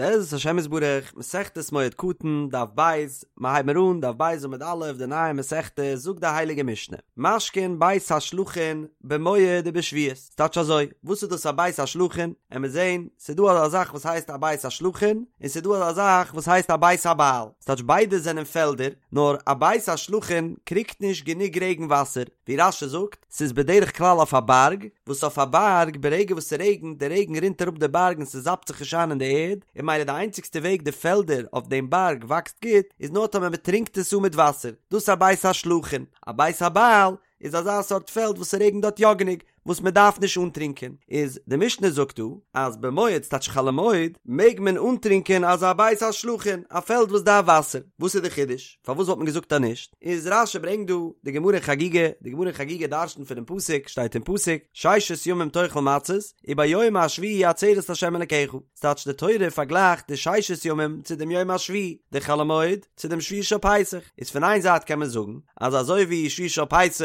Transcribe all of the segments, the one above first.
בעזרת השם יתברך, מסכת מועד קטן, דף ב', מיר הייבן אן, דף ב' עמוד א', די נייע מסכתא, זאגט די הייליגע משנה, משקין בית השלחין במועד ובשביעית, ס'טייטש אזוי, וואס איז דאס א בית השלחין? עמיר זען, ס'איז דא אזא זאך וואס הייסט א בית השלחין, און ס'איז דא אזא זאך וואס הייסט א בית הבעל, ס'טייטש ביידע זענען פעלדער, נאר א בית השלחין קריגט נישט גענוג רעגן וואסער, ווי רש"י זאגט, ס'איז בדרך כלל אויף א בארג, וואס אויף א בארג ברגע וואס ס'רעגנט, די רעגן רינט אראפ די בארג און ס'זאפט זיך נישט איין אין די ערד, און ממילא די איינציגסטע וועג די פעלדער אויף דעם בארג וואקסט גוט, איז נאר טאמער מ'טרינקט עס אן מיט וואסער, דאס איז א בית השלחין. א בית הבעל איז אזא סארט פעלד וואס ס'רעגנט דארט יא גענוג, וואס מ'דארף נישט אנטרינקען. איז די משנה זאגט דא, אז במועד ס'טייטש חול המועד, מעג מען אנטרינקען אזא בית השלחין, א פעלד וואס דארף וואסער. וואס איז די חידוש? פארוואס וואלט מען געזאגט אז נישט? איז רש"י ברענגט דא די גמרא אין חגיגה, די גמרא אין חגיגה דרש'נט פונעם פסוק, שטייט אין פסוק, ששת ימים תאכל מצות, וביום השביעי עצרת לה' אלקיך, ס'טייטש די תורה פארגלייכט די ששת ימים צו דעם יום השביעי, די חול המועד צו דעם שביעי של פסח, איז פון איין זייט קען מען זאגן אז אזוי ווי שביעי של פסח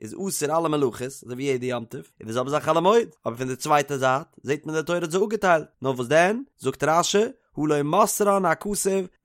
איז אסור אלע מלאכות, אזוי ווי יעדע יום טוב, איז די זעלבע זאך חול המועד, אבער פון די צווייטע זייט זעט מען די תורה האט זיי אפגעטיילט, נאר וואס דען, זאגט רש"י, הא לא מסרן הכתוב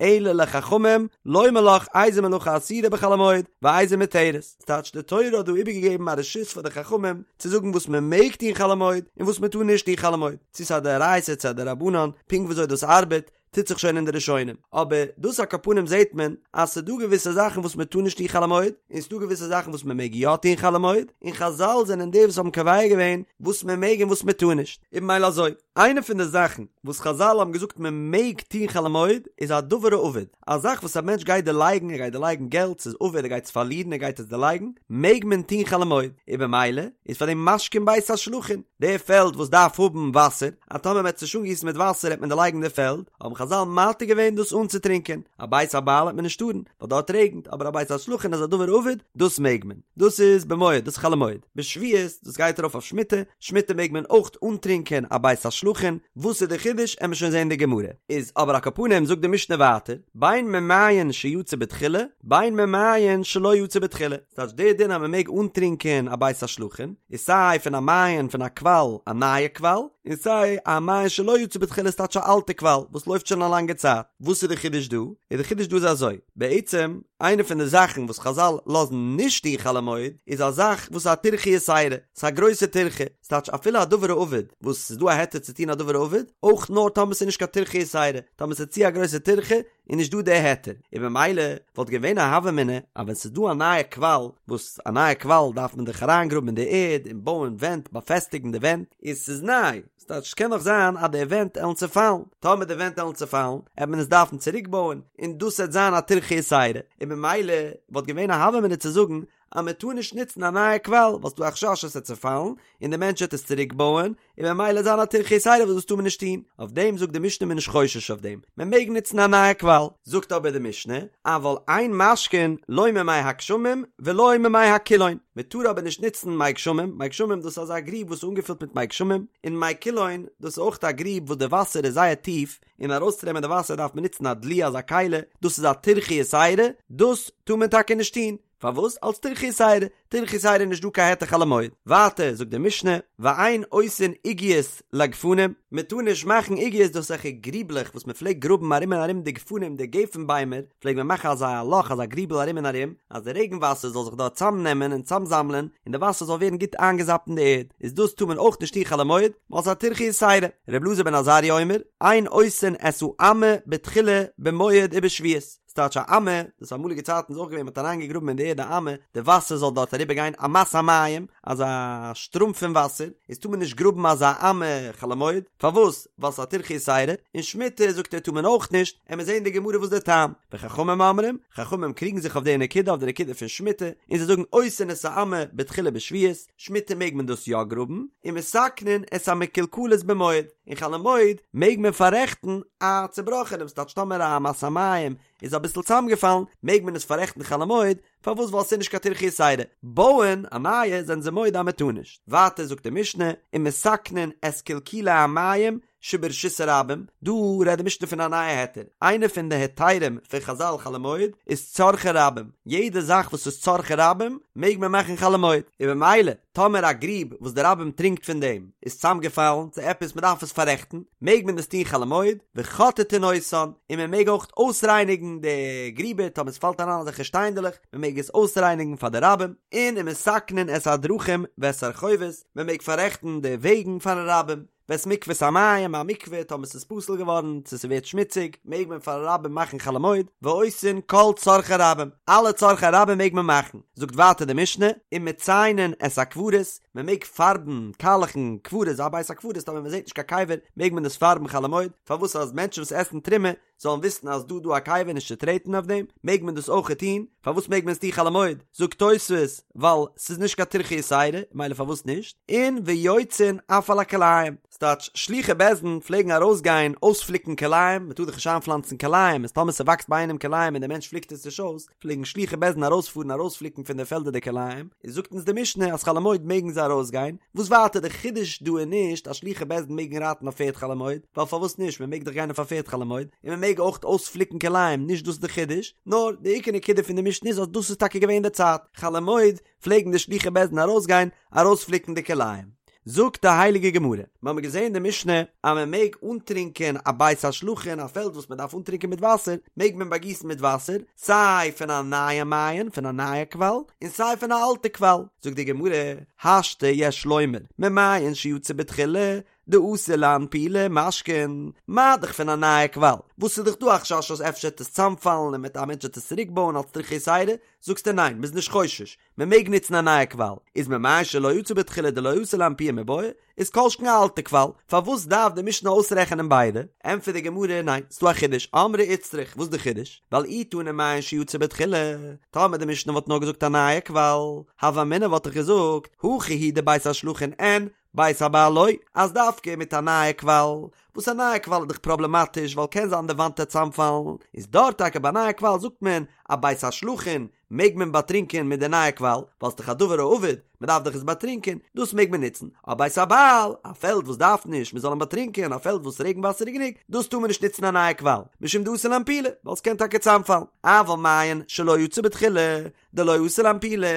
אלא לחכמים לומר לך איזה מלאכה אסורה בחול המועד ואיזה מותרת, ס'טייטש די תורה האט דא איבערגעגעבן א רשות פאר די חכמים צו זאגן וואס מען מעג טון חול המועד און וואס מען טאר נישט טון חול המועד, צו ס'איז א דאורייתא צו א דרבנן, פונקט וויאזוי דאס ארבעט טוט זיך שוין אין די ראשונים, אבער דאס על כל פנים זעט מען אז ס'דא געוויסע זאכן וואס מען טאר נישט טון חול המועד, און ס'דא געוויסע זאכן וואס מען מעג יא טון חול המועד, און חזל זענען די וואס האבן קובע געווען וואס מען מעג און וואס מען טאר נישט, און ממילא אזוי. איינע פון די זאכן וואס חזל האבן געזאגט מען מעג טון חול המועד איז א דבר האבד, א זאך וואס א מענטש גייט דערלייגן, ער גייט דערלייגן געלט, ס'איז אבד, ער גייט עס פארלירן, ער גייט עס דערלייגן, מעג מען טון חול המועד, און במילא איז פאר דעם משקין בית השלחין, די פעלד וואס דארף האבן וואסער, אז טאמער מען האט עס נישט אנגיסן מיט וואסער העט מען דערלייגן די פעלד, האבן חזל מתיר געווען דאס אנצוטרינקען, א בית הבעל העט מען נישט טארן, ווייל דארט רעגנט, אבער א בית השלחין איז א דבר האבד, דאס מעג מען. דאס איז במועד, דאס איז חול המועד. בשביעית, דאס גייט ארויף אויף שמיטה, שמיטה מעג מען אויך אנטרינקען א בית השלחין, וואס איז די חידוש עמיר שוין זעהן די גמרא. איז אבער על כל פנים זאגט די משנה ווייטער, בין ממעיין שיצא בתחילה, בין ממעיין שלא יצא בתחילה, ס'טייטש דער דין אז מען מעג אנטרינקען א בית השלחין, איז סיי פון א מעיין פון א קוואל, א נייע קוואל, און סיי א מעיין שלא יצא בתחילה ס'טייטש א אלטע קוואל וואס לויפט שוין א לאנגע צייט. וואס איז די חידוש דא? איז די חידוש דא איז אזוי, בעצם איינע פון די זאכן וואס חזל לאזן נישט טון חול המועד איז א זאך וואס איז א טירחא יתירה, ס'איז א גרויסע טירחא, ס'טייטש אפילו א דבר האבד וואס ס'איז דא א היתר צו טון א דבר האבד, אויך נאר טאמער ס'איז נישט קיין טירחא יתירה, טאמער ס'איז צו א גרויסע טירחא איז נישט דא די היתר, און במילא וואלט געווען א הוה אמינא אז ווען ס'איז דא א נייע קוואל, וואס א נייע קוואל דארף מען דאך אריינגראבן אין די ערד און בויען ווענט באפעסטיגן די ווענט, און ס'איז ניי, ס'טייטש ס'קען נאך זיין אז די ווענט עלן צעפאלן, טאמער די ווענט עלן צעפאלן עט מען עס דארפן צוריק בויען, און דאס עט זיין א טירחא יתירה, און במילא וואלט געווען א הוה אמינא צו זאגן אז מען טאר נישט נוצן א נייע קוואל ווייל ס'דא א חשש עס עט צעפאלן און די מענטש עט עס צוריק בויען, און במילא עט זיין א טירחא יתירה וואס דאס טאר מען נישט טון, אויף דעם זאגט די משנה מען איז נישט חושש אויף דעם, מען מעג נוצן א נייע קוואל, זאגט אבער די משנה, אבל אין משקין לא ממי הגשמים ולא ממי הקילון, מען טאר אבער נישט נוצן מי גשמים, מי גשמים דאס איז אזא גריב וואס איז אנגעפילט מיט מי גשמים, און מי קילון דאס איז אויך א גריב וואס די וואסער איז זייער טיף, און ארויסצונעמען די וואסער דארף מען נוצן א דלי אזא כלי, דאס איז א טירחא יתירה, דאס טאר מען טאקע נישט טון, פארוואס? אלס טירחא יתירה, טירחא יתירה איז נישט דא קיין היתר חול המועד. ווייטער זאגט די משנה, ואין עושין עוגיות לגפנים, מען טאר נישט מאכן עוגיות דאס אזעלכע גריבלעך וואס מען פלעגט גראבן ארום און ארום די גפנים די גפן ביימער, פלעגט מען מאכן אזא לאך אזא גריבל ארום און ארום, אז די רעגן וואסער זאל זיך דארט צאמנעמען און צאמזאמלען, און די וואסער זאל ווערן גוט איינגעזאפט אין די ערד, איז דאס טאר מען אויך נישט טון חול המועד, ווייל ס'איז א טירחא יתירה. ר' אלעזר בן עזריה אומר, אין עושין את האמה בתחילה במועד ובשביעית. ס'טייטש א אמה, דאס אמאליגע צייטן איז אויך געווען מ'האט אריינגעגראבן אין די ערד א אמה, די וואסער זאל דארט אריבער גיין, אמת המים, אזא שטראם פון וואסער, איז טאר מען נישט גראבן אזא אמה חול המועד, פארוואס? ווייל ס'איז א טירחא יתירה, און שמיטה זאגט ער טאר מען אויך נישט, עמיר זעהן אין די גמרא וואס די טעם, וחכמים אומרים, חכמים קריגן זיך אויף די נקודה אויף די נקודה פון שמיטה, און זיי זאגן עושין את האמה בתחילה בשביעית, שמיטה מעג מען דאס יא גראבן, ומתקנין את המקולקלות במועד. און חול המועד מעג מען פאררעכטן א צובראכענעם, ס'טייטש טאמער א אמת המים איז אביסל צוזאמגעפאלן מעג מען עס פאררעכטן חול המועד, פארוואס ווייל ס'איז נישט קיין טירחא יתירה, בויען א נייע זענען זיי מודה אז מ'טאר נישט. ווייטער זאגט די משנה, ומתקנין את קלקולי המים שברשות הרבים, דא רעדט די משנה פון א נייע היתר, איינע פון די היתרים פון חזל חול המועד איז צרכי רבים, יעדע זאך וואס איז צרכי רבים מעג מען מאכן חול המועד, און במילא טאמער א גריב וואס די רבים טרינקט פון דעם איז צוזאמגעפאלן צו עפעס מען דארף עס פאררעכטן, מעג מען עס טון חול המועד, וחוטטין אותן, און מען מעג אויך אויסרייניגן די גריבער טאמער עס פאלט אריין אזעלכע שטיינדעלעך, מען מעג עס אויסרייניגן פאר די רבים, און ומתקנין את הדרכים ואת הרחובות, מען מעג פאררעכטן די וועגן פארן רבים. ואת מקוות המים, א מקווה, טאמער ס'איז פסול געווארן, צו ס'ווערט שמוציג, מעג מען פארן רבים מאכן חול המועד, ועושין כל צרכי רבים, אלע צרכי רבים מעג מען מאכן. זאגט ווייטער די משנה, ומציינין את הקברות, מען מעג פארבן, קאלעכן, קברות, א בית הקברות, טאמער מען זעט נישט קיין קבר, מעג מען עס פארבן חול המועד, פארוואס אז מענטשן וואס עסן תרומה, זאלן וויסן אז דא דא א קבר נישט צו טרעטן אויף דעם, מעג מען דאס אויכעט טון, פארוואס מעג מען עס טון חול המועד? זאגט תוספות, ווייל ס'איז נישט קיין טירחא יתירה, מילא פארוואס נישט? און ויוצאין אף על הכלאים, ס'טייטש שלוחי בית דין פלעגן ארויסגיין אויספליקן כלאים, מ'טאר דאך נישט איינפלאנצן כלאים, איז טאמער ס'וואקסט ביי איינעם כלאים און דער מענטש פליקט עס נישט אויס, פלעגן שלוחי בית דין ארויספארן ארויספליקן פון די פעלדער די כלאים, איז זאגט אונז די משנה אז חול המועד מעגן זיי ארויסגיין, וואס ווייטער די חידוש דא איז נישט אז שלוחי בית דין מעגן רייטן אויף פערד חול המועד, ווייל פארוואס נישט מען מעג דאך גיין אויף א פערד חול המועד, און מען מעג אויך אויספליקן כלאים, נישט דאס איז די חידוש, נאר די עיקר נקודה פון די משנה איז אז דאס איז טאקע געווען די צייט, חול המועד פלעגן די שלוחי בית דין ארויסגיין ארויספליקן די כלאים. זאגט די הייליגע גמרא, מיר האבן געזען אין די משנה אז מען מעג אנטרינקען א בית השלחין, א פעלד וואס מען דארף אנטרינקען מיט וואסער, מעג מען באגיסן מיט וואסער, סיי פון א נייע מעיין, פון א נייע קוואל, און סיי פון א אלטע קוואל. זאגט די גמרא, השתא יש לומר, ממעיין שיצא בתחילה, דאתי לאנפולי משקין, מה דאך פון א נייע קוואל, וואס איז דאך דא א חשש אז אפשר וועט עס צאמפאלן און מיט א מענטש וועט עס צוריק בויען אלס טירחא יתירה, זאגסטו ניין, מ'איז נישט חושש, מען מעג נוצן א נייע קוואל, איז ממעיין שלא יצא בתחילה דלא אתי לאנפויי מיבעיא, איז כל שכן א אלטע קוואל, פארוואס דארף די משנה אויסרעכענען ביידע? ענטפערט די גמרא, ניין, ס'דא א חידוש, אמרי איצטריך, וואס איז די חידוש? ווייל אי תנא מעיין שיצא בתחילה, טאמער די משנה וואלט נאר געזאגט א נייע קוואל, הוה אמינא וואלט איך געזאגט, הכא הוא דבית השלחין אין, בית הבעל לא, אז דווקא מיט א נייע קוואל, וואס א נייע קוואל איז דאך פראבלעמאטיש ווייל קען זיין די וואנט וועט צאמפאלן, איז דארט טאקע ביי נייע קוואל זאגט מען א בית השלחין מעג מען באטרינקען מיט די נייע קוואל, ווייל ס'דאך א דבר האבד, מען דארף דאך עס באטרינקען, דאס מעג מען נוצן, אבער בית הבעל, א פעלד וואס דארף נישט מען זאל אים באטרינקען, א פעלד וואס רעגן וואסער איז גענוג, דאס טאר מען נישט נוצן א נייע קוואל, משום דאתי לאנפולי, ווייל ס'קען טאקע צאמפאלן, אבל מעיין שלא יצא בתחילה, דלא אתי לאנפולי,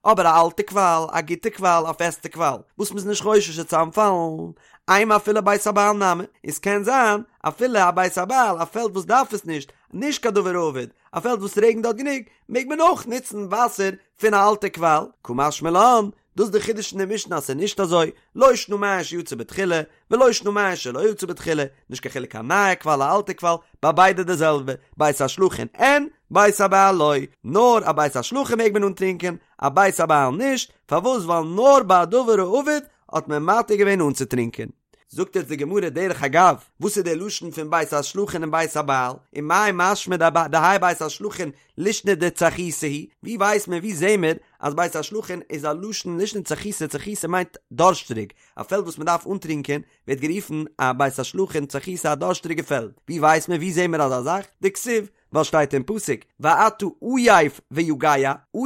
אבער א אלטע קוואל, א גוטע קוואל, א פעסטע קוואל, וואס מ'איז נישט חושש צו צאמפאלן, אימא אפילו בית הבעל נמי, און ס'קען זיין, אפילו א בית הבעל, א פעלד וואס דארף עס נישט, נישט קיין דבר האבד, א פעלד וואס רעגנט דארט גענוג, מעג מען אויך נוצן וואסער פון א אלטע קוואל, קא משמע לן, דאס איז די חידוש אין די משנה אז ס'איז נישט אזוי, לא שנא מעיין שיצא בתחילה, ולא שנא מעיין שלא יצא בתחילה, נישט קיין חילוק א נייע קוואל א אלטע קוואל, ביי ביידע די זעלבע, בית השלחין אין, בית הבעל לא, נאר א בית השלחין מעג מען אנטרינקען, א בית הבעל נישט, פארוואס ווייל נאר ביי א דבר האבד האט מען מתיר געווען אנצוטרינקען. זאגט יעצט די גמרא דרך אגב, וואס איז דער לשון פון בית השלחין און בית הבעל, ומאי משמע דהאי בית השלחין לישנא דצחיתא היא, ווי ווייסט מען ווי זעהן מיר אז בית השלחין איז א לשון לישנא דצחיתא, צחיתא מיינט דארשטריג, א פעלד וואס מען דארף אנטרינקען ווערט גערופן א בית השלחין צחיתא א דארשטריגע פעלד, ווי ווייסט מען ווי זעהן מיר אזא זאך? דכתיב, ווייל שטייט אין פסוק ואתה עיף ויגע,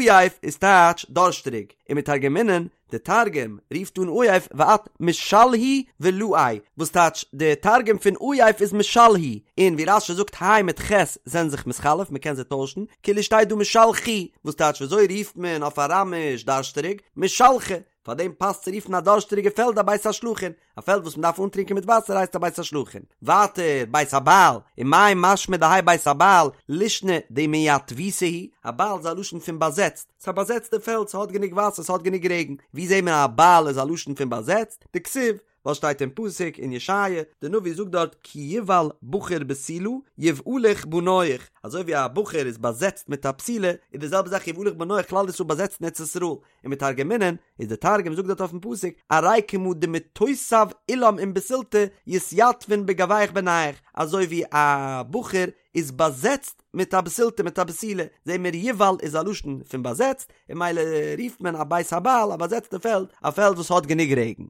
עיף איז טייטש דארשטריג, ומתרגמינן, די תרגום רופט אן עיף ואת משלהי ולעי, וואס טייטש די תרגום פון עיף איז משלהי, און ווי רש"י זאגט ה' מיט ח' זענען זיך מתחלף מען קען זיי טוישן, כאילו שטייט דא משלחי, וואס טייטש ווי אזוי רופט מען אויף אראמיש דארשטריג, משלחי, פאר דעם פאסט צו רופן א דארשטריגע פעלד א בית השלחין, א פעלד וואס מען דארף אנטרינקען מיט וואסער הייסט א בית השלחין. ווייטער, בית הבעל, ומאי משמע דהאי בית הבעל, לישנא דמייתבותא היא, הבעל איז א לשון פון באזעצט, ס'איז א באזעצטע פעלד, ס'האט גענוג וואסער, ס'האט גענוג רעגן. ווי זעהט מען אז הבעל איז א לשון פון באזעצט? דכתיב, ווייל שטייט אין פסוק אין ישעיה, די נביא זאגט דארט כי יבעל בחור בתולה יבעלוך בניך, אזוי ווי א בחור איז באזעצט מיט א בתולה, איז די זעלבע זאך יבעלוך בניך כלל ישראל באזעצט אין ארץ ישראל, ומתרגמינן, איז די תרגום זאגט דארט אויפן פסוק, ארי כמא דמיתותב עילם עם בתולתא יתיתבון בגויך בניך, אזוי ווי א בחור איז באזעצט מיט א בתולתא מיט א בתולה, זעהן מיר יבעל איז א לשון פון באזעצט, און ממילא רופט מען א בית הבעל א באזעצטע פעלד, א פעלד וואס האט גענוג רעגן.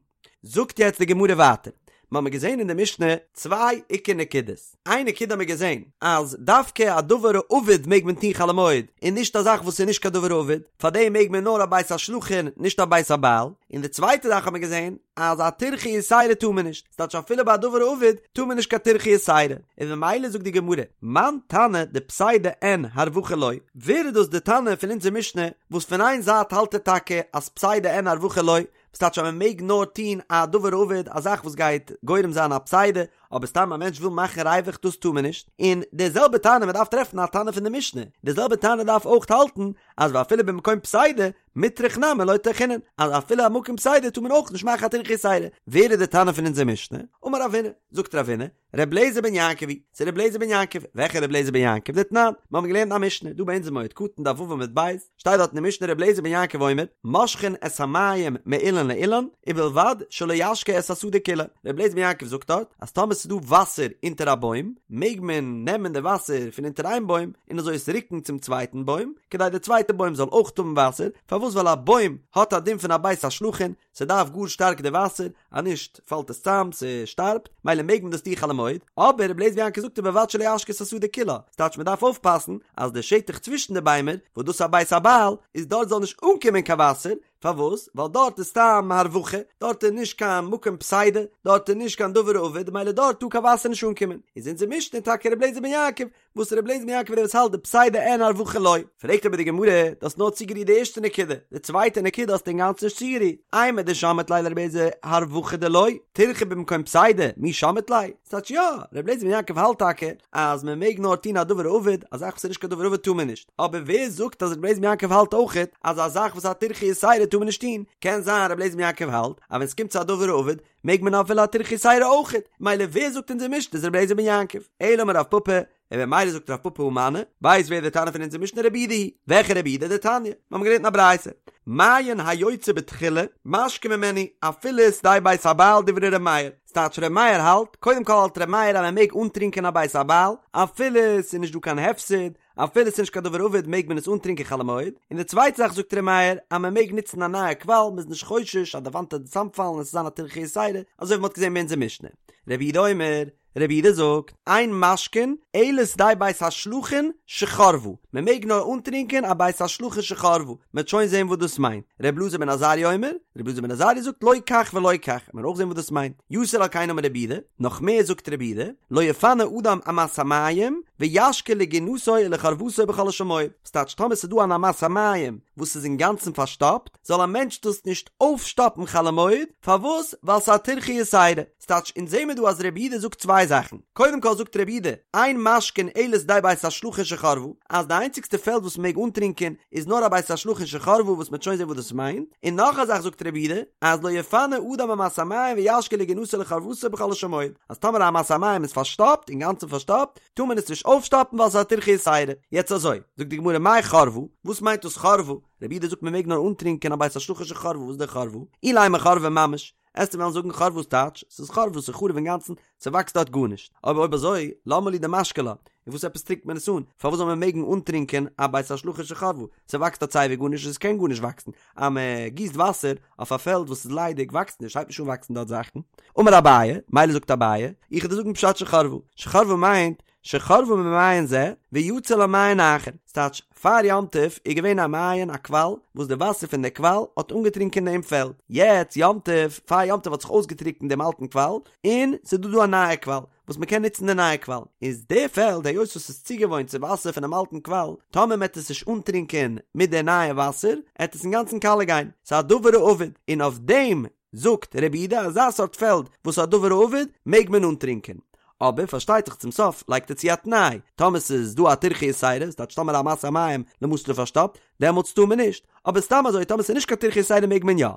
זאגט יעצט די גמרא ווייטער, מ'האמיר געזען אין די משנה צוויי עיקר נקודות, איין נקודה האמיר געזען אז דווקא א דבר האבד מעג מען טון חול המועד און נישט א זאך וואס איז נישט קיין דבר האבד, פארדעם מעג מען נאר א בית השלחין נישט א בית הבעל, און די צווייטע זאך האמיר געזען אז א טירחא יתירה טאר מען נישט, ס'טייטש אפילו ביי א דבר האבד טאר מען נישט קיין טירחא יתירה, און ממילא זאגט די גמרא, מאן תנא דפסידא אין הרווחה לא, ווער איז דאס די תנא פון אונזער משנה וואס פון איין זייט האלט ער טאקע אז פסידא אין הרווחה לא, וואס טייטש אז מען מעג נאר טון א דבר האבד, א זאך וואס גייט גורם זיין א פסידא, אבער סתם א מענטש וויל מאכן ריווח דאס טאר מען נישט, און די זעלבע תנא מען דארף טרעפן א תנא פון די משנה, די זעלבע תנא דארף אויך האלטן אז ואפילו במקום פסידא מיטרח נמי לא טרחינן, אז אפילו א מקום פסידא טאר מען אויך נישט מאכן א טירחא יתירה, ווער איז די תנא פון אונזער משנה? אמר רב הונא, זאגט רב הונא, ר' אליעזר בן יעקב היא, ס'איז ר' אליעזר בן יעקב, וועלכע ר' אליעזר בן יעקב? דתנן, מיר האבן געלערנט א משנה, דא ביי אונז אין מועד קטן דף ו' עמוד ב', שטייט דארט אין די משנה ר' אליעזר בן יעקב אומר, מושכין את המים מאילן לאילן, ובלבד שלא ישקה את השדה כולה. ר' אליעזר בן יעקב זאגט דארט, אז טאמער ס'איז דא וואסער אונטער א בוים, מעג מען נעמען די וואסער פון אונטער איין בוים, און אזוי עס רוקן צום צווייטן בוים, כדי די צווייטע בוים זאל אויך האבן וואסער, פארוואס ווייל א בוים האט א דין פון א בית השלחין, ס'דארף גאר שטארק די וואסער, אז נישט פאלט עס צאם, ס'שטארבט, מילא מעג מען דאס טון חול המועד, אבער רבי אליעזר בן יעקב זאגט ובלבד שלא ישקה את השדה כולה, ס'טייטש מ'דארף אויפפאסן אז די שטח צווישן די ביימער, וואס דאס איז א בית הבעל, איז דארט זאל נישט אנקומען קיין וואסער, פארוואס? ווייל דארט איז סתם הרווחה, דארט איז נישט קיין מקום פסידא, דארט איז נישט קיין דבר האבד, מילא דארט טאר קיין וואסער נישט אנקומען, איז אונזער משנה טאקע רבי אליעזר בן יעקב, וואס רבי אליעזר בן יעקב דער וואס האלט דפסידא אין הרווחה לא. פרעגט אבער די גמרא, דו האסט נאר צוגערירט די ערשטע נקודה, די צווייטע נקודה האסטו אינגאנצן נישט צוגערירט, אימר דשמעת ליה לרבי אליעזר הרווחה דלא, טירחא במקום פסידא, מי שמעת ליה? ס'טייטש יא, רבי אליעזר בן יעקב האלט טאקע אז מען מעג נאר טון א דבר האבד, א זאך וואס איז נישט קיין דבר האבד טאר מען נישט, אבער ווער זאגט אז רבי אליעזר בן יעקב האלט אויכעט אז א זאך וואס איז א טירחא יתירה טאר מען נישט טון, קען זיין רבי אליעזר בן יעקב האלט אז ווען ס'קומט צו א דבר האבד מעג מען אפילו א טירחא יתירה אויכעט, מילא ווער זאגט אונזער משנה איז רבי אליעזר בן יעקב? אלא אמר רב פפא, און במילא זאגט רב פפא הא מני, ווייסט ווער די תנא פון אונזער משנה רבי יהודה היא, וועלכע רבי יהודה? דתניא, מיר האבן געלערנט אין א ברייתא, מעיין היוצא בתחילה, משקין ממנו, אפילו שדה בית הבעל דברי ר' מאיר, ס'טייטש ר' מאיר האלט, קודם כל האלט ר' מאיר אז מען מעג אנטרינקען א בית הבעל, אפילו ס'איז נישט דא קיין הפסד, אפילו ס'איז נישט קיין דבר האבד מעג מען עס אנטרינקען חול המועד, און די צווייטע זאך זאגט ר' מאיר אז מען מעג נוצן א נייע קוואל, מ'איז נישט חושש אז די וואנט וועט צוזאמפאלן און ס'זאל זיין א טירחא יתירה, אזוי ווי מ'האט געזען ביי אונזער משנה. רבי יהודה אומר, רבי יהודה זאגט, אין משקין אלא שדה בית השלחין שחרבה, מען מעג נאר אנטרינקען א בית השלחין שחרבה, מ'וועט שוין זען וואס דאס מיינט. רבי אלעזר בן עזריה אומר, רבי אלעזר בן עזריה זאגט לא כך ולא כך, מ'וועט אויך זען וואס דאס מיינט. יתר על כן אמר רבי יהודה, נאך מער זאגט רבי יהודה, לא יפנה אדם אמת המים וישקה לגינתו ולחורבתו בחולו של מועד, וואס טייטש טאמער ס'איז דא אן אמת המים וואס איז אינגאנצן פארשטאפט, זאל א מענטש דאס נישט אויפשטאפן חול המועד, פארוואס? ווייל ס'איז א טירחא יתירה. ס'טייטש, אונז זעהן מיר דא אז רבי יהודה זאגט צוויי זאכן, קודם כל זאגט רבי יהודה, אין משקין אלא שדה בית השלחין שחרבה, אז די איינציגסטע פעלד וואס מ'מעג אנטרינקען איז נאר א בית השלחין שחרבה וואס מ'וועט שוין זעהן וואס דאס מיינט, און נאך א זאך זאגט רבי יהודה, אז לא יפנה אדם אמת המים וישקה לגינתו ולחורבתו בחולו של מועד, אז טאמער א אמת המים איז פארשטאפט, אינגאנצן פארשטאפט, טאר מען עס נישט אויפשטאפן ווייל ס'איז א טירחא יתירה. יעצט אזוי, זאגט די גמרא מאי חרבה, וואס מיינט דאס חרבה? רבי יהודה זאגט מ'מעג נאר אנטרינקען א בית השלחין שחרבה, וואס איז דער חרבה? אילימא חרבה ממש, עסטו וועלן זאגן חרבה וואס טייטש? ס'איז חרבה ס'איז חרוב אינגאנצן, ס'וואקסט דארט גארנישט. אבער אויב אזוי, למה לי דמשקי לה? און וואס עפעס טרינקט מען עס אן? פארוואס זאל מען מעגן אנטרינקען א בית השלחין שחרבה? ס'וואקסט דארט סייווי גארנישט און ס'קען גארנישט וואקסן. אז מ'גיסט וואסער אויף א פעלד וואס איז ליידיג וואקסט נישט, הייבט נישט אן וואקסן דארט זאכן. אמר אביי, מילא זאגט אביי, איך וועל דיר זאגן פשט שחרבה. שחרבה מיינט, שחרבה ממעיין זה, ויצא לה מעיין אחר, ס'טייטש, פאר יום טוב איז געווען א מעיין א קוואל, וואס די וואסער פון די קוואל האט אנגעטרינקען דעם פעלד, יעצט יום טוב, פאר יום טוב האט זיך אויסגעטריקנט דעם אלטן קוואל, און ס'איז דא דא א נייע קוואל, וואס מ'קען נוצן די נייע קוואל, איז די פעלד היות וואס ס'איז צוגעוואוינט צו וואסער פונעם אלטן קוואל, טאמער מ'עט עס נישט אנטרינקען מיט די נייע וואסער, עט עס אינגאנצן קאלע גיין, ס'איז א דבר האבד, און אויף דעם זאגט רבי יהודה אזא סארט פעלד וואס איז א דבר האבד מעג מען אנטרינקען, אבער פארשטייט זיך צום סוף לייגט ער צו א תנאי, טאמער ס'איז דא א טירחא יתירה, ס'טייטש טאמער אמת המים למשל איז פארשטאפט, דעמאלטס טאר מען נישט, אבער סתם אזוי טאמער ס'איז נישט קיין טירחא יתירה מעג מען יא.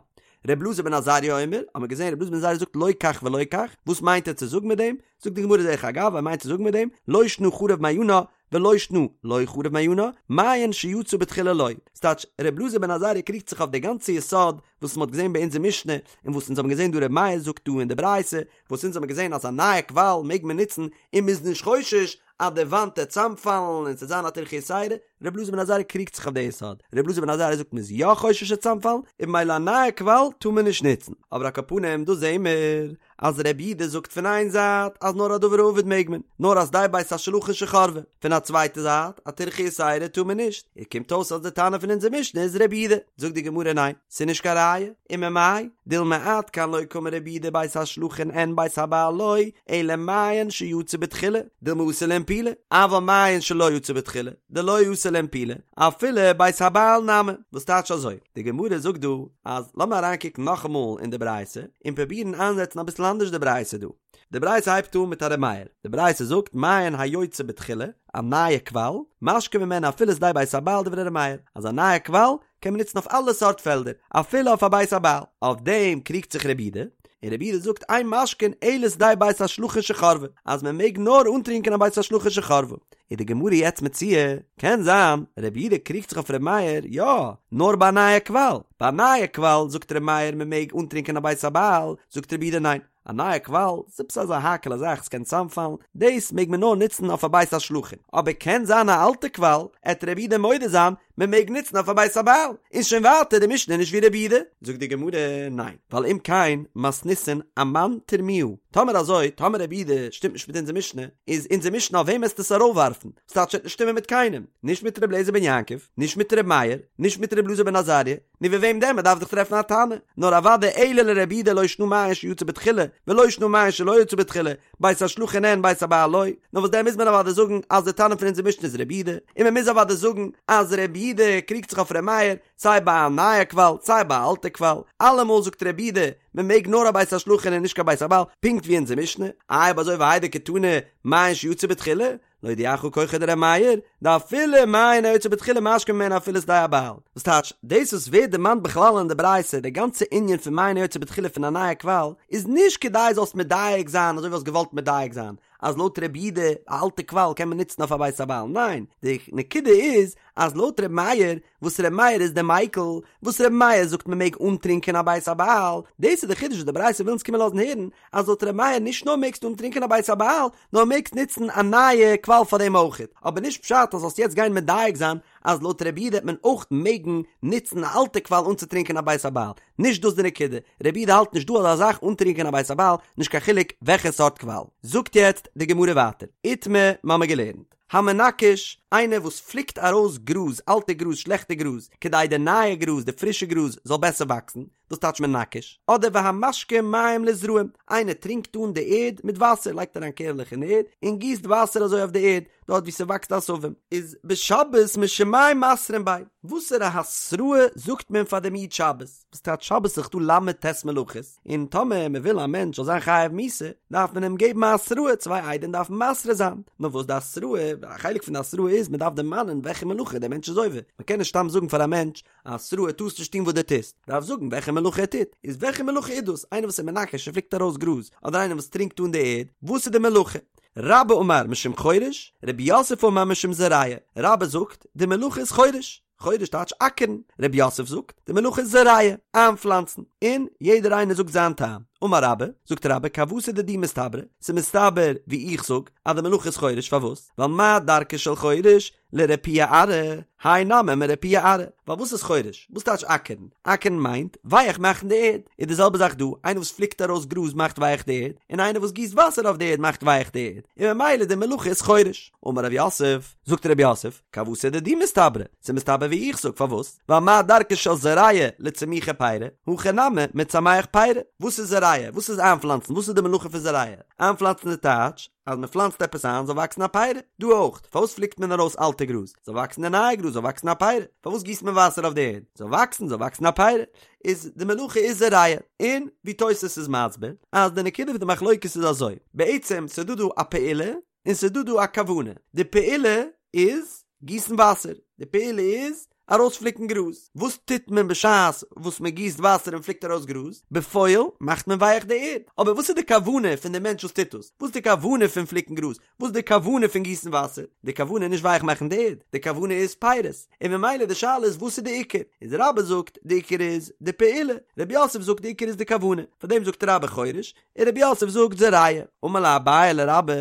ר' אלעזר בן עזריה אומר, האט מען געזען ר' אלעזר בן עזריה זאגט לא כך ולא כך, וואס מיינט ער צו זאגן מיט דעם? זאגט די גמרא דרך אגב, ער מיינט צו זאגן מיט דעם, לא שנא חרב מעיינה, ולא שנא לא חרב מעיינה, מעיין שיצא בתחילה לא. ס'טייטש, ר' אלעזר בן עזריה קריגט זיך אויף די גאנצע יסוד וואס מ'האט געזען ביי אונזער משנה, און וואס אונז האבן געזען דא ר' מאיר זאגט דא אין די ברייתא, וואס אונז האבן געזען אז א נייע קוואל מעג מען נוצן און מ'איז נישט חושש אז די וואנט וועט צאמפאלן און ס'וועט זיין א טירחא יתירה. ר' אלעזר בן עזריה קריגט זיך אויף די יסוד, ר' אלעזר בן עזריה זאגט מ'איז יא חושש ס'עט צאמפאלן, און במילא א נייע קוואל טאר מען נישט נוצן. אבער על כל פנים דא זעהן מיר אז ר' יהודה זאגט פון איין זייט אז נאר א דבר האבד מעג מען, נאר א שדה בית השלחין שחרבה, פון א צווייטע זייט א טירחא יתירה טאר מען נישט, און קומט אויס אז די תנא פון אונזער משנה איז ר' יהודה, זאגט די גמרא ניין, ס'איז נישט קיין ראיה, וממאי דילמא עד כאן לא קאמר רבי יהודה בית השלחין אין בית הבעל לא, אלא מעיין שיצא בתחילה, דילמא אתי לאינפולי, אבל מעיין שלא יצא בתחילה, דלא אתי לאינפולי, אפילו בית הבעל נמי, וואס טייטש אזוי? די גמרא זאגט דא אז לאמיר אריינקוקן נאכאמאל אין די ברייתא און פרובירן איינזעצן אביסל אנדערש די ברייתא דא. די ברייתא הייבט אן מיט א ר' מאיר, די ברייתא זאגט מעיין היוצא בתחילה, א נייע קוואל, משקין ממנו אפילו שדה בית הבעל דברי ר' מאיר, אז א נייע קוואל קען מען נוצן אויף אלע סארט פעלדער, אפילו אויף א בית הבעל. אויף דעם קריגט זיך רבי יהודה, און רבי יהודה זאגט אין משקין אלא שדה בית השלחין שחרבה, אז מען מעג נאר אנטרינקען א בית השלחין שחרבה. איז די גמרא יעצט מציע, קען זיין רבי יהודה קריגט זיך אויף רבי מאיר, יא, נאר ביי א נייע קוואל, ביי א נייע קוואל זאגט רבי מאיר מען מעג אנטרינקען א בית הבעל, זאגט רבי יהודה ניין, א נייע קוואל, ס'איז עפעס אזא האקעלע זאך, ס'קען צאמפאלן, דאס מעג מען נאר נוצן אויף א בית השלחין, אבער קען זיין א אלטע קוואל, עט רבי יהודה מודה זיין, מען מעג נוצן אויף א בית הבעל, איז שוין ווייטער די משנה נישט ווי רבי יהודה. זאגט די גמרא, ניין, ווייל אם כן מתניתין אמאן תרמוה, טאמער אזוי, טאמער רבי יהודה שטימט נישט מיט אונזער משנה, איז אונזער משנה אויף וועם עסטו עס ארויפווארפן? ס'טייטש עט נישט שטימען מיט קיינעם, נישט מיט רבי אליעזר בן יעקב, נישט מיט רבי מאיר, נישט מיט רבי אלעזר בן עזריה, נו ווי וועם דען? מ'דארף דאך טרעפן א תנא. נאר אוודאי אלא לרבי יהודה לא שנא מעיין שיצא בתחילה, ולא שנא מעיין שלא יצא בתחילה, בית השלחין אין בית הבעל לא. נאר וואס דען מוז מען אוודאי זאגן אז די תנא פון אונזער משנה איז רבי יהודה, און מ'מוז אוודאי זאגן אז רבי יהודה קריגט זיך אויף ר' מאיר, סיי ביי א נייע קוואל סיי ביי א אלטע קוואל, אלעמאל זאגט רבי יהודה מ'מעג נאר א בית השלחין און נישט קיין בית הבעל, פונקט ווי אונזער משנה. איי אויב אזוי והאי דקתני מעיין שיצא בתחילה, להודיעך כחו דר' מאיר, דאפילו מעיין היוצא בתחילה משקין ממנו אפילו שדה הבעל. וואס טייטש, דאס וואס ווערט דערמאנט בכלל אין די ברייתא, די גאנצע ענין פון מעיין היוצא בתחילה פון א נייע קוואל, איז נישט כדי זאלסט מדייק זיין אזוי ווי האסט געוואלט מדייק זיין, אז לויט רבי יהודה א אלטע קוואל קען מען נוצן אויף א בית הבעל, ניין, די נקודה איז אז לויט ר' מאיר, וואס ר' מאיר איז די מיקל, וואס ר' מאיר זאגט מען מעג אנטרינקען א בית הבעל, דאס איז די חידוש וואס די ברייתא וויל אונז קומען לאזן הערן, אז לויט ר' מאיר נישט נאר מעגסטו אנטרינקען א בית הבעל, נאר מעגסט נוצן א נייע קוואל פאר דעם אויכעט, אבער נישט פשט אז זאלסט יעצט גיין מדייק זיין אז לויט רבי יהודה העט מען אויך מעגן נוצן א אלטע קוואל אנצוטרינקען א בית הבעל, נישט דאס די נקודה, רבי יהודה האלט נישט דא אזא זאך אנטרינקען א בית הבעל, נישט קיין חילוק וועלכע סארט קוואל. זאגט יעצט די גמרא ווייטער, איתמר, מ'האמיר געלערנט, המנכש, איינער וואס פליקט ארויס גראז, אלטע גראז, שלעכטע גראז, כדי די נייע גראז, די פרישע גראז, זאל בעסער וואקסן, דאס טייטש מנכש, אדער והמשקה מים לזרעים, איינער טרינקט אן די ערד מיט וואסער, לייגט אריין קערלעך אין ערד, און גיסט וואסער אזוי אויף די ערד, דארט וואו ס'וואקסט עשבים. איז בשבת משום מאי מתרין ביה, וואסערע התראה זאגט מען פאר דעם איד שבת? וואס טייטש שבת איז דאך דא ל"ט מלאכות, און טאמער מען וויל א מענטש זאל זיין חייב מיתה, דארף מען אים געבן א התראה, צוויי עדים דארפן מתרה זיין, נאר וואס די התראה, א חלק פון די התראה איז מען דארף דערמאנען וועלכע מלאכה דער מענטש איז עובר, מען קען נישט סתם זאגן פאר א מענטש א התראה טארסט נישט טון וואס דו טוסט, דארף זאגן וועלכע מלאכה ער טוט, איז וועלכע מלאכה איז דאס, איינער וואס איז מנכש און פליקט ארויס גראז, אדער איינער וואס טרינקט אן די ערד, וואס איז די מלאכה? רבה אמר משום חורש, רב יוסף אמר משום זורע, רבה זאגט, די מלאכה איז חורש, חורש טייטש אקערן, רב יוסף זאגט, די מלאכה איז זורע, איינפלאנצן, און יעדער איינער זאגט זיין טעם, אמר רבה, זאגט רבה כוותיה דידי מסתברא, ס'איז מסתבר ווי איך זאג, אז די מלאכה איז חורש, פארוואס? ווייל מה דרכה של חורש, לרפויי ארעא, האי נמי מרפויי ארעא, ווייל וואס איז חורש? וואס טייטש אקערן? אקערן מיינט ווייעך מאכן די ערד, איז די זעלבע זאך דא, איינער וואס פליקט ארויס גראז מאכט ווייעך די ערד, און איינער וואס גיסט וואסער אויף די ערד מאכט ווייעך די ערד, און ממילא די מלאכה איז חורש. אמר רב יוסף, זאגט רב יוסף, כוותיה דידי מסתברא, ס'איז מסתבר ווי איך זאג, פארוואס? ווייל מה דרכה של זורע לצמוחי פירי, הכא נמי מצמח פירי, וואס איז זורע? וואס איז איינפלאנצן? וואס איז די מלאכה פון זורע? איינפלאנצן איז טייטש, אז מען פלאנצט עפעס איין זאל וואקסן א פירי, דא אויך, פארוואס פליקט מען ארויס אלטע גראז, זאל וואקסן די נייע גראז, זאל וואקסן א פירי, פארוואס גיסט מען וואסער אויף די ערד, זאל וואקסן, זאל וואקסן א פירי, איז די מלאכה איז זורע, און ווי תוס' איז מסביר, אז די נקודה פון די מחלוקת איז אזוי, בעצם ס'דא דא א פעולה, און ס'דא דא א כוונה, די פעולה איז גיסן וואסער, די פעולה איז ארויספליקן גראז. וואס טוט מען בשעת וואס מען גיסט וואסער און פליקט ארויס גראז? בפועל מאכט מען ווייעך די ערד. אבער וואס איז די כוונה פון די מענטש וואס טוט דאס? וואס איז די כוונה פון פליקן גראז? וואס איז די כוונה פון גיסן וואסער? די כוונה איז נישט ווייעך מאכן די ערד, די כוונה איז פירות. און ממילא די שאלה איז וואס איז די עיקר? איז רבה זאגט די עיקר איז די פעולה, רב יוסף זאגט די עיקר איז די כוונה. פאר דעם זאגט רבה חורש, און רב יוסף זאגט זורע. אמר ליה אביי לרבה.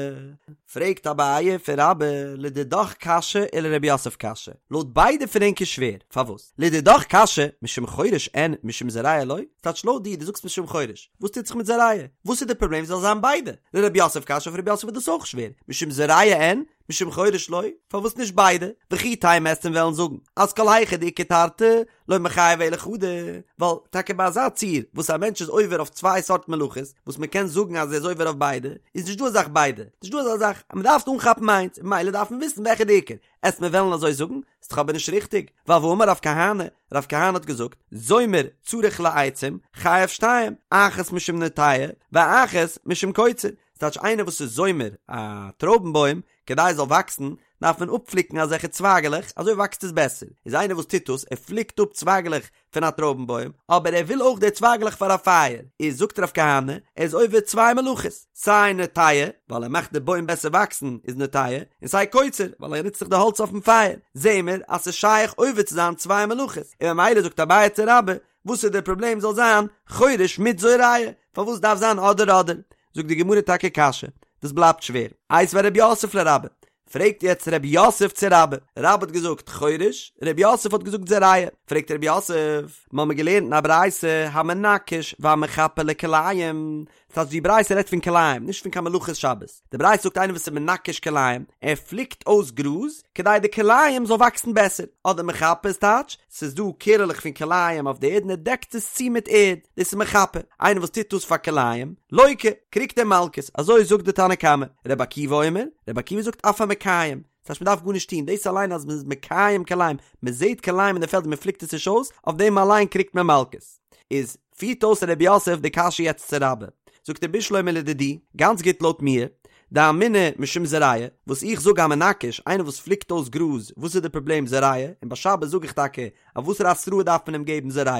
פרעגט אביי פון רבה, לדידך קשיא ולרב יוסף קשיא, לויט ביידע פון ענק איז שווער, פארוואס? לדידך קשיא, משום חורש אין משום זורע לא, ס'טייטש לויט דיר, דו זאגסט משום חורש, וואס טוט זיך מיט זורע? וואס איז די פראבלעם זאל זיין ביידע? לרב יוסף קשיא, אויף רב יוסף איז דאס אויך שווער, משום זורע אין משום חורש לא, פארוואס נישט ביידע? וכי תימא וועסט וועלן זאגן אז כל היכא דאיכא תרתי לא מיחייב אלא חדא, ווייל טאקע ביי אזא ציור וואס א מענטש איז עובר אויף צוויי סארט מלאכות, וואס מען קען זאגן אז ער איז עובר אויף ביידע, איז נישט דא אזא זאך ביידע, נישט דא אזא זאך אז מען דארף אנכאפן איינס, און ממילא דארף מען וויסן וועלכע די עיקר, עסט מיר וועלן אזוי זאגן, ס'איז דאך אבער נישט ריכטיג, ווייל והאמר רב כהנא, רב כהנא האט געזאגט, זומר צריך לעצים, חייב שתיים, אחת משום נוטע, ואחת משום קוצר, ס'טייטש איינער וואס איז זומר א טרויבן בוים כדי עס זאל וואקסן דארף מען אפפליקן אזעלכע צווייגעלעך אזוי וואקסט עס בעסער, איז איינער וואס טוט דאס ער פליקט אפ צווייגעלעך פון א טרויבן בוים אבער ער וויל אויך די צווייגעלעך פאר א פייער, איז זאגט רב כהנא ער איז עובר צוויי מלאכות, סיי נוטע ווייל ער מאכט די בוים בעסער וואקסן איז נוטע, און סיי קוצר ווייל ער נוצט זיך די האלץ אויפן פייער, זעהן מיר אז ס'איז שייך עובר צו זיין צוויי מלאכות, און ממילא זאגט אביי צו רבה וואס איז דער פראבלעם זאל זיין חורש מיט זורע, פארוואס דארף זיין אדער אדער? זאגט די גמרא טאקע קשיא, דאס בלייבט שווער. איתיביה רב יוסף לרבה, פרעגט יעצט רב יוסף צו רבה, רבה האט געזאגט חורש, רב יוסף האט געזאגט זורע, פרעגט רב יוסף, מ'האמיר געלערנט אין א ברייתא המנכש והמחפה לכלאים, ס'הייסט די ברייתא רעדט פון כלאים, נישט פון קיין מלאכות שבת, די ברייתא זאגט איינער וואס איז מנכש כלאים, ער פליקט אויס גראז כדי די כלאים זאל וואקסן בעסער, אדער מחפה איז טייטש, ס'איז דא קערעלעך פון כלאים אויף די ערד און ער דעקט עס צו מיט ערד, דאס איז מחפה, איינער וואס טוט דאס פאר כלאים, לוקה, קריגט ער מלקות, אזוי זאגט די תנא קמא, רבי עקיבא אומר, רבי עקיבא זאגט אף המקיים, ס'הייסט מ'דארף גארנישט טון, דאס אליין אז מ'איז מקיים כלאים, מ'זעט כלאים אין די פעלד און מ'פליקט עס נישט אויס, אויף דעם אליין קריגט מען מלקות. איז פירט אויס רב יוסף די קשיא יעצט צו רבה, זאגט ער בשלמא לדידי, גאנץ גוט לויט מיר, דאמינא משום זורע, וואס איך זאג המנכש, איינער וואס פליקט אויס גראז, וואס איז די פראבלעם זורע, און ביי שבת זאג איך טאקע, אויף וואסערע התראה דארף מען אים געבן זורע,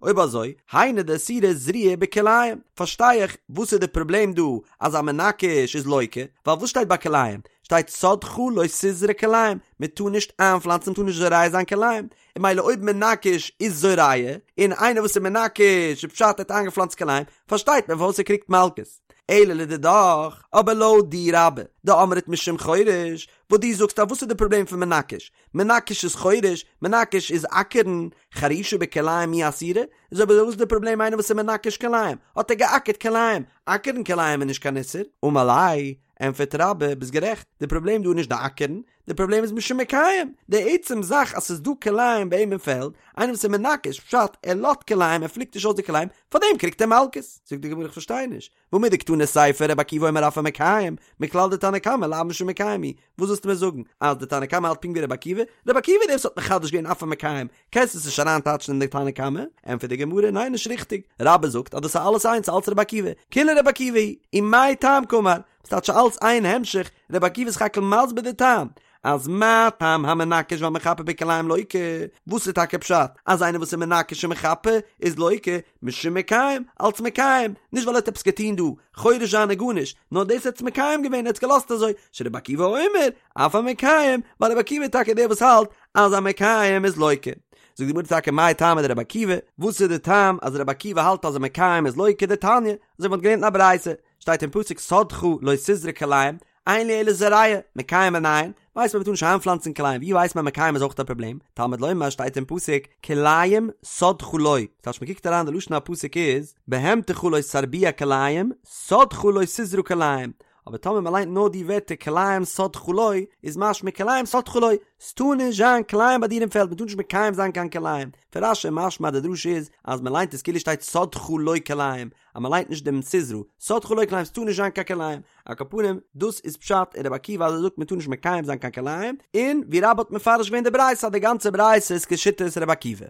אויב אזוי, היינו דאסירא זריעה בכלאים, פארשטיי איך וואס איז די פראבלעם דא אז א מנכש איז לוקה, ווייל וואס שטייט ביי כלאים? שטייט שדך לא תזרע כלאים, מען טאר נישט איינפלאנצן מען טאר נישט זורע זיין כלאים, און ממילא אויב מנכש איז זורע, און איינער וואס איז מנכש איז פשט ער האט איינגעפלאנצט כלאים, פארשטייט מען פארוואס ער קריגט מלקות. אלא לדידך, אבער לויט דיר רבה, דאמרת משום חורש, וואס דו זאגסט אז וואס איז די פראבלעם פון מנכש? מנכש איז חורש, מנכש איז אקערן, חרישה בכלאים מי אסירא? איז אויב אזוי וואס איז די פראבלעם איינער וואס איז מנכש כלאים, האט ער געאקערט כלאים, אקערן כלאים איז נישט קיין איסור? אמר ליה, ענטפערט רבה, ביסט גערעכט, די פראבלעם דא איז נישט די אקערן, די פראבלעם איז משום מקיים, די עצם זאך אז ס'איז דא כלאים ביי אים אין פעלד, איינער וואס איז מנכש, פשט, ער לאזט כלאים, ער פליקט נישט אויס די כלאים, פארדעם קריגט ער מלקות. זאגט די גמרא איך פארשטיי נישט, והא מדקתני סיפא רבי עקיבא אומר אף המקיים, מכלל דתנא קמא לאו משום מקיים הוא, וואס ווילסטו מיר זאגן, אז די תנא קמא האלט פונקט ווי רבי עקיבא? רבי עקיבא איז דער וואס האט מחדש געווען אף המקיים, קענסט עס נישט אריינטייטשן אין די תנא קמא? ענטפערט די גמרא, ניין נישט ריכטיג, רבה זאגט אז דאס איז אלעס איינס אלץ רבי עקיבא, כולה רבי עקיבא היא, ומאי טעם קאמר, ס'טייטש אלץ איין המשך, רבי עקיבא איז סך הכל מסביר די טעם, אז מה טעם המנכש והמחפה בכלאים לוקה, וואס איז טאקע פשט אז איינער וואס איז מנכש און מחפה איז לוקה, משום מקיים, אלץ מקיים, נישט ווייל ער האט עפעס געטון דא, חורש זיין און גארנישט, נאר דאס ער האט עס מקיים געווען, ער האט עס געלאזט אזוי, שרבי עקיבא אומר, אף המקיים, ווייל רבי עקיבא איז טאקע דער וואס האלט אז א מקיים איז לוקה. זאגט די גמרא טאקע מאי טעמא דרבי עקיבא, וואס איז די טעם אז רבי עקיבא האלט אז א מקיים איז לוקה, דתניא, אזוי ווי מ'האט געלערנט אין א ברייתא, שטייט אין פסוק שדך לא תזרע כלאים, אין לי אלא זורע, מקיים מנין, ווייסט מען מ'טאר נישט איינפלאנצן כלאים, ווי ווייסט מען מקיים איז אויך א פראבלעם, תלמוד לומר שטייט אין פסוק כלאים שדך לא, ס'טייטש מ'קוקט אריין די לשון הפסוק איז בהמתך לא תרביע כלאים, שדך לא תזרע כלאים, אבער טאמער מ'ליינט נאר די ווערטער כלאים שדך לא, איז משמע כלאים שדך לא, ס'טאר נישט זיין כלאים ביי דיר אין פעלד, מ'טאר נישט מקיים זיין קיין כלאים, פון רש"י משמע אז די דרשה איז אז מ'ליינט עס כאילו שטייט שדך לא כלאים, אז מען ליינט נישט דעם תזרע, שדך לא כלאים ס'טאר נישט זיין קיין כלאים, על כל פנים דאס איז פשט אין רבי עקיבא אז ער זאגט מען טאר נישט מקיים זיין קיין כלאים, און ווי רבה האט מפרש געווען די ברייתא אז די גאנצע ברייתא איז כשיטת רבי עקיבא.